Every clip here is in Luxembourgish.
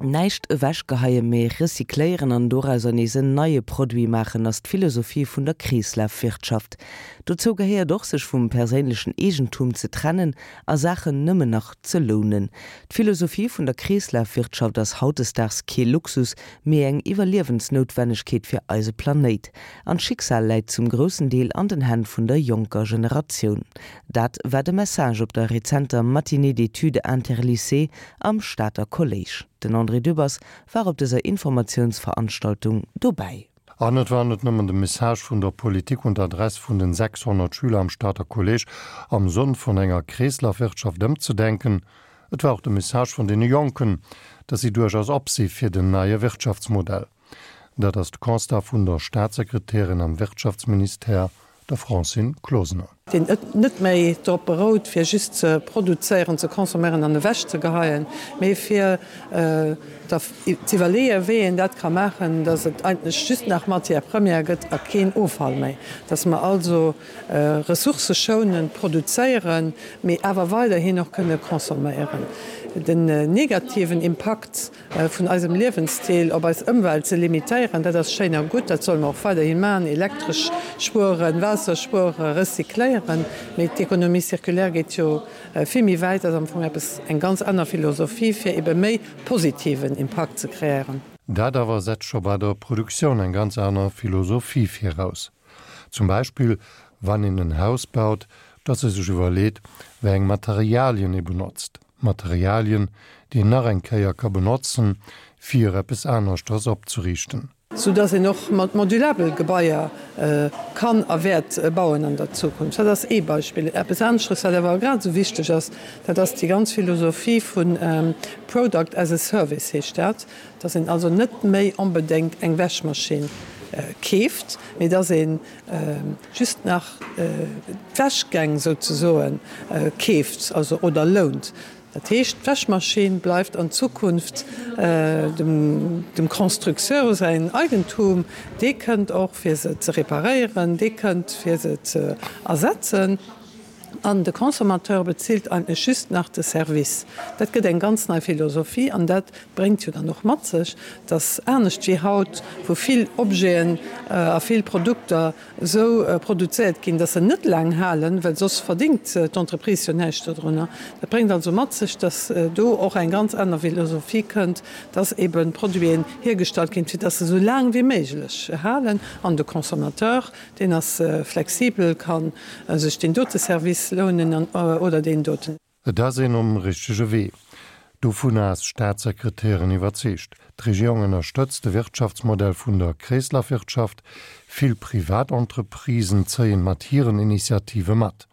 Näischt ewechgeheien, mee recycléieren an dorauser nees en neie Produit maachen, ass d'Philosophie vun der Kreeslafwirtschaft. Dozou gehéiert och, sech vum perséinlechen Eegentum ze trennen a Saachen nëmmen nach ze lounen. D'Philosophie vun der Kreeslafwirtschaft ass hautdesdaags kee Luxus, mee eng Iwwerliewensnoutwennegkeet fir eise Planéit. An d'Schicksal läit zum groussen Deel an den Hänn vun der jonker Generatioun. Dat war de Message op der rezenter Matinée d'études interlycées am Stater Kolléisch. Den André Dübbers war op dëser Informatiounsveranstaltung dobäi. An et war net nëmmen de Message vun der Politik un d'Adress vun den 600 Schüler am Stater Kolléisch am Sënn vun enger Kreeslafwirtschaft ëmzedenken, et war och de Message vun deene Jonken, datt si duerchaus op si fir den neie Wirtschaftsmodell. Dat ass de Constat vun der Staatssekretärin am Wirtschaftsministère, der Francine Closener. Deen net méi drop berout, fir just ze produzéieren, ze consomméieren an ewechzegeheien, mee fir z'iwwerleeën, wéi een dat ka maachen, dass et eigentlech just nach Matière première gëtt a keen Offall méi, dass mer also ressourcëschounend produzéieren, mee awer weiderhin och kënne consomméieren. Den negativen Impakt vun eisem Liewensstil op eis Ëmwelt ze limitéieren, dat ass schéin a gutt, dat solle mer och weiderhi maachen, Elektresch spueren, Waasser spueren, recycléieren, mee d'Économie circulaire geet jo vill méi wäit, ass am Fong eppes, eng ganz aner Philosophie, fir ebe méi positiven Impakt ze kreéieren. Dat awer setzt scho bei der Produktioun eng ganz aner Philosophie viraus. Zum Beispill wann een en Haus baut, dass ee sech iwwerleet, wéi eng Materialien ee benotzt. Materialien, déi een nach eng Kéier ka benotzen, fir eppes aneschters opzeriichten. Sou dass een och mat modulabel Gebaier kann a wäert bauen an der Zukunft. Dat ass ee Beispill. Eppes aneschtes, wat awer grad esou wichteg ass, dat ass déi ganz Philosophie vu Product as a Service heescht dat, dass een also net méi onbedéngt eng Wäschmaschinn keeft, mee dass ee just nach d'Wäschgäng souzesoe keeft, also oder lount. Dat heescht, d'Wäschmaschinn bleift an Zukunft dem Constructeur säin Eigentum. Dee kënnt och fir se ze reparéieren, dee kënnt fir se ze ersetzen. An de Consommateur bezilt eigentlech just nach de Service. Dat gëtt eng ganz nei Philosophie an dat bréngt jo dann och mat sech, dass anescht wéi haut, wou vill Objeten a vill Produkter esou produzéiert ginn, dass se net laang halen, well soss verdingt d'Entreprise jo näischt dodrunner. Dat bréngt also mat sech, dass do och eng ganz aner Philosophie kënnt, dass eben Produiten hiergestallt ginn, fir dass se esou laang wéi méiglech halen an de Consommateur Deen ass flexibel, ka sech deen dote Service lounen oder deen doten. Et ass een um richtege Wee. Dovunner ass d'Staatssekretärin iwwerzeegt. D'Regierung ënnerstëtzt de Wirtschaftsmodell vun der Kreeslafwirtschaft. Vill Privatentreprisen zéien mat hiren Initiative mat.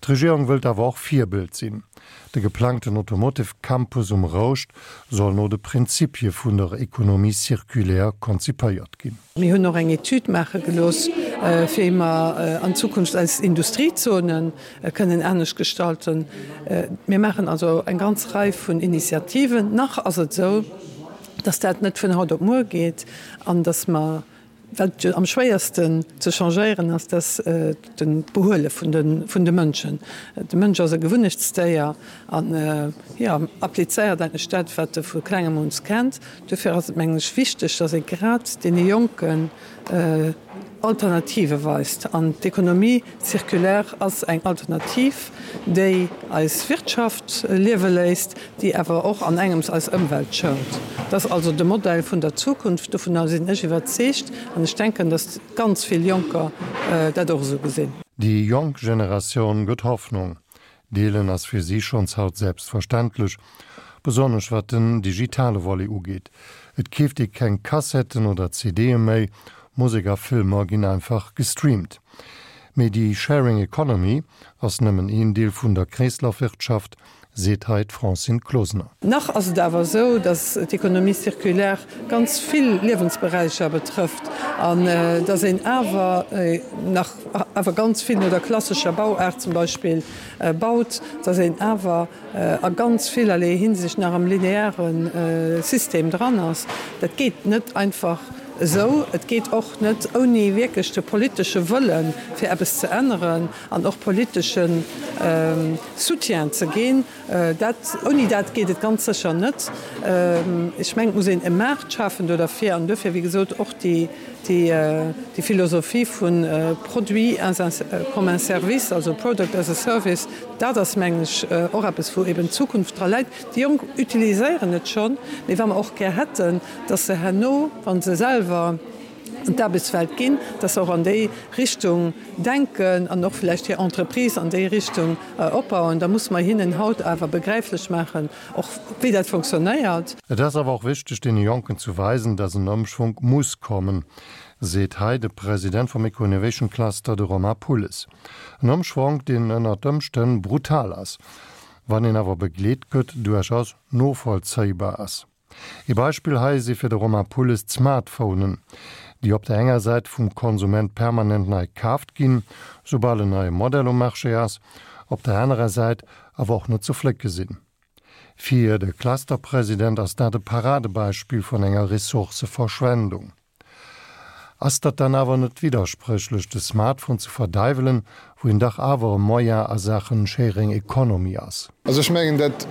D'Regierung wëllt awer och Virbild sinn. De geplangten Automotive Campus um Rouscht soll no de Prinzipie vun der Économie circulaire konzipéiert ginn. Mir hunn och eng Etüd maache gelooss, wéi mer an Zukunft eis Industriezone kënnen anescht gestalten. Mir maachen also eng ganz Rei vun Initiativen. Nach ass et esou, dass dat net vun haut op muer geet an dass mer Wat jo am schwéiersten ze changéieren ass, dat ass d'Behuele vun de Mënschen. De Mënsch ass e Gewunnechtsdéier an, jo, applizéiert eigentlech dat, wat e vu klengem un kennt. Dofir ass et, mengen ech, wichteg, datt ee grad deene Jonken Alternative weist. An d'Économie circulaire ass eng Alternativ, déi eis Wirtschaft liewe léisst, déi awer och an engems eis Ëmwelt schount. Dat ass also de Modell vun der Zukunft, dovunner sinn ech iwwerzeegt an ech denken, datt ganz vill Jonker dat och esou gesinn. Déi jonk Generatioun gëtt Hoffnung. Deelen ass fir si schonns haut selbstverständlech, besonnesch wat den digitale Volet ugeet. Et keeft ee keng Kassetten oder CDe méi, Musek a Filmer ginn einfach gestreamt. Mee déi Sharing Economy ass nëmmen een Deel vun der Kreeslafwirtschaft, seet hei d'Francine Closener. Nach ass et awer esou, datt d'Économie circulaire ganz vill Liewensberäicher betrëfft an datt een awer nach awer ganz vill no der klassescher Bauaart zum Beispill baut, datt een awer a ganz villerlee Hinsicht nach am lineare System dran ass. Dat geet net einfach. esou. Et geet och net ouni wierklech de politesche Wëllen, fir eppes ze änneren an och politesche Soutien ze ginn. Dat, ouni dat geet et ganz sécher net. Ech mengen, et muss een e Maart schafen do derfir an duerfir, wéi gesot, och déi, déi Philosophie vu Produit as un, comme un service, also Product as a Service, dat ass, mengen ech, och eppes, wou eben d'Zukunft dra läit. Déi Jonk utiliséieren et schonn, mee wa mer och gär hätten, dass se herno, wa se selwer an d'Aarbechtswelt ginn, dass se och an déi Richtung denken an och vläicht hir Entreprise an déi Richtung opbauen, da musse mer hinnen haut awer begräiflech maachen, och wéi dat fonctionnéiert. Et ass awer och wichteg, deene Jonken zu weisen, dass en Ëmschwonk muss kommen, seet hei de President vum Eco-Innovation Cluster, de Romain Pulles. En Ëmschwonk, deen ënnert Ëmstänn brutal ass, wann een awer begleet gëtt, duerchaus novollzéibar ass. Ee Beispill hei si fir de Romain Pulles d'Smartphonen, déi op der enger Säit vum Konsument permanent nei kaaft ginn, soubal en neie Modell um Marché ass, op der anerer Säit awer och net ze flécke sinn. Fir de Clusterpresident ass dat e Paradebeispill vun enger Ressourcëverschwendung. Ass dat dann awer net widderspréchlech, de Smartphone ze verdeiwelen, wou en dach awer e Moyen a Saachen Sharing Economy ass? Also ech mengen, dat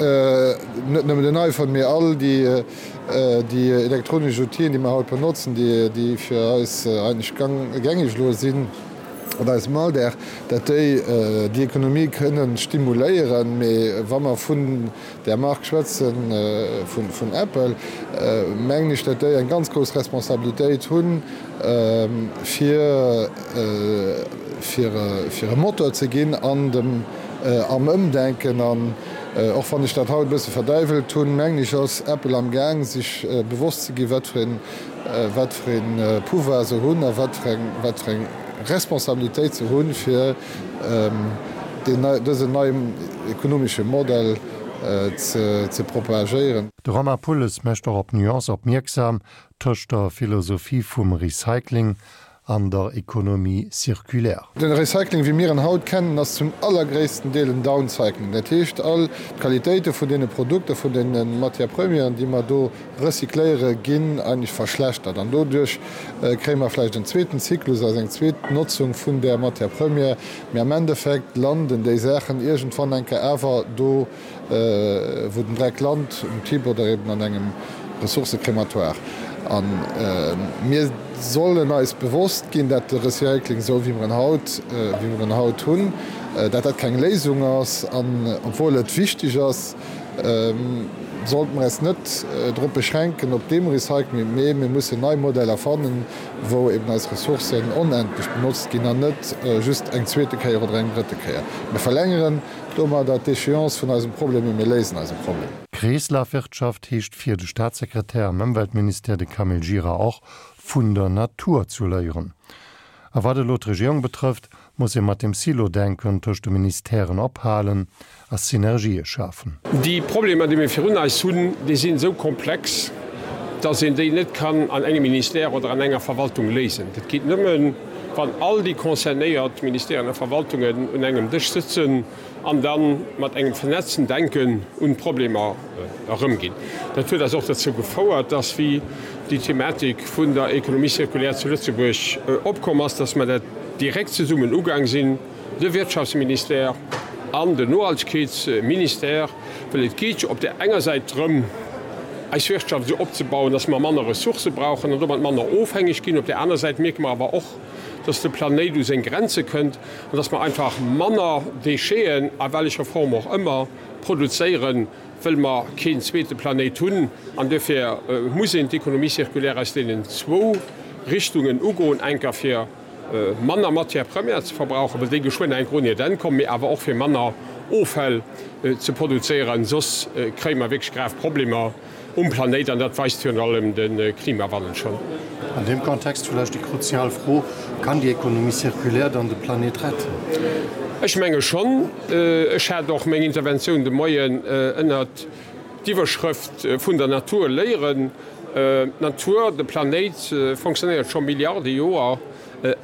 net nëmmen den iPhone, mee all déi elektronesch Outile, déi mer haut benotzen, déi fir eis eigentlech gängeg elo sinn an eisem Alldag, dat déi déi Ekonomie kënnen stimuléieren. Mee wa mer vun där Mark schwätzen, vun Apple, mengen ech, datt déi eng ganz grouss Responsabilitéit hunn, fir fir e Motor ze ginn an dem am Ëmdenken. An och wann ech dat haut e bësse verdäiwelt hunn, mengen ech, ass Apple am Gaang, sech bewosst ze ginn, wat fir een wat fir ee Pouvoir se hunn a wat fir eng wat fir eng Responsabilitéit se hunn, fir dësen neien ekonomesche Modell ze propagéieren. De Romain Pulles mécht och op d'Nuance opmierksam tëscht der Philosophie vum Recycling an der Économie circulaire. De Recycling wéi mir en haut kennen ass zum allergréissten Deel en Downcycling. Dat heescht all d'Qualitéite vun deene Produkter, vun deene Matières premièren, déi mer do recycléiere ginn eigentlech verschlechtert an doduerch kréie mer vläicht en zweeten Zyklus, also eng zweet Notzung vun där Matière première, mee am Endeffekt landen déi Saachen iergendwann eng Kéier awer do, wou den Dreck lant, um Tipp oder eben an engem Ressourcecrématoire. A mir sollen eis bewosst ginn, dat de Recycling, esou wéi mer en haut, wéi mer en haut hunn, dat dat keng Léisung ass an obwuel et wichteg ass, sollte mer eis net drop beschränken op deem Recycling, mee mir mussen nei Modeller fannen, wou eben eis Ressourcen onendlech benotzt ginn an net just eng zweete Kéier oder eng drëtte Kéier. Mir verlängeren domadder d'Échéance vun eisem Problem, mee mir léisen eise Problem. Kreeslafwirtschaft heescht fir de Staatssekretär am Ëmweltministère, de Camille Gira, och, vun der Natur zu léieren. A wat elo d'Regierung betrëfft, muss ee mat dem Silo-Denken tëscht de Ministèren ophalen a Synergië schafen. Déi Problemer, déi mir virun eis hunn, déi sinn esou komplex, dass een déi net kann an engem Ministère oder an enger Verwaltung léisen. Dat geet nëmmen, wann all déi concernéiert Ministèren a Verwaltungen un engem Dësch sëtzen an da mat engem vernetzten Denken un d'Problemer erëmginn. Dat huet eis och dozou gefouert, dass, wéi déi Thematik vun der Économie circulaire zu Lëtzebuerg opkomm ass, dass mer dat direkt zesummen ugaang sinn, de Wirtschaftsministère an den Nohaltegkeetsministère, well et geet jo op där enger Säit drëm, eis Wirtschaft esou opzebauen, dass mer manner Ressourcë brauchen an domat manner ofhängeg ginn. Op där aner Säit mierke mer awer och, dass de Planéit u seng Grenze kënnt an dass mer einfach manner Décheten, a wellecher Form och ëmmer, produzéieren, wëll mer keen zweete Planéit hunn. An duerfir muss een d'Économie circulaire aus deenen zwou Richtungen ugoen, enker fir manner Matière première ze verbrauchen, well déi geschwënn enk un hiert Enn kommen, mee awer och fir manner Offäll ze produzéieren, soss kréie mer wierklech grav Problemer um Planéit an dat weist virun allem de Klimawandel schonn. An deem Kontext vläicht déi kruzial Fro, Kann déi Économie circulaire dann de Planéit retten? Ech menge schonn. Ech hat och meng Interventioun de Moien ënnert d'Iwwerschrëft vun der Natur léieren. D'Natur, de Planéit fonctionnéiert scho Milliarde Joer,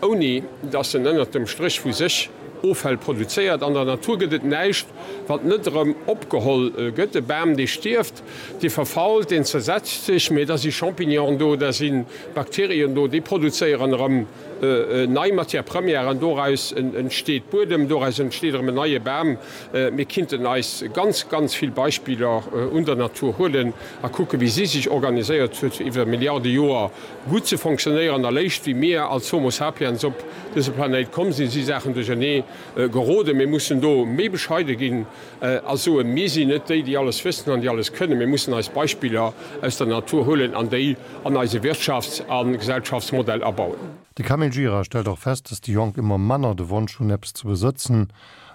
ouni datt en ënnert dem Stréch vu sech. Offäll produzéiert. An der Natur gëtt et näischt, wat net erëm opgeholl gëtt. E Bam, dee stierft, dee verfault, deen zersetzt sech, mee da si Champignonen do, da si Bakterien do, déi produzéieren erëm nei Matière première an doraus entsteet Buedem, doraus entsteet erëm en neie Bam. Mir kinnten eis ganz, ganz vill Beispiller un der Natur huelen a kucken, wéi si sech organiséiert huet, fir iwwer Milliarde Joer gutt ze fonctionnéieren. Eréischt wéi mir als Homo sapiens op dëse Planéit komm sinn, si Saachen duerchernee geroden. Mir mussen do méi bescheide ginn a soen, Mir sinn net déi, déi alles wëssen an déi alles kënnen. Mir mussen eis Beispiller aus der Natur huelen an déi an eise Wirtschafts a Gesellschaftsmodell abauen. De Camille Gira stellt och fest, datt déi Jonk ëmmer manner de Wonsch hunn, eppes ze besëtzen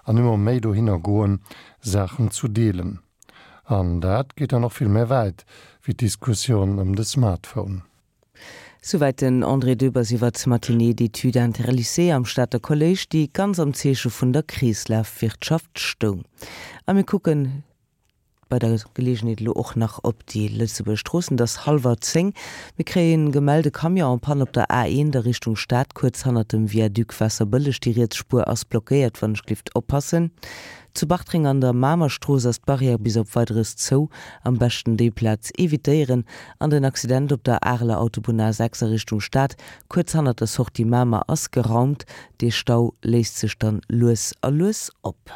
an ëmmer méi dohinner goen, Saachen zu deelen. An dat geet dann och vill méi wäit wéi d'Diskussioun ëm de Smartphone. Souwäit den André Dübbers iwwer d'Matinée d'études interlycées am Stater Kolléisch, déi ganz am Zeeche vun der Kreeslafwirtschaft stoung. A mir kucken bei der Geleegenheet elo och nach op déi Lëtzebuerger Stroossen. Et ass hallwer 10. Mir kréien gemellt, e Camion en panne op der A1 a Richtung Stad, kuerz hannert dem Viaduc Waasserbëlleg. Déi riets Spuer ass blockéiert, wann ech glift oppassen. Zu Bartreng an der Mamerstrooss ass d'Barrière bis op Weideres zou, am beschten déi Plaz evitéieren. An den Accident op der Areler Autobunn A6 a Richtung Stad, kuerz hannert der Sortie Mamer, ass geraumt. Dee Stau léist sech dann lues a lues op.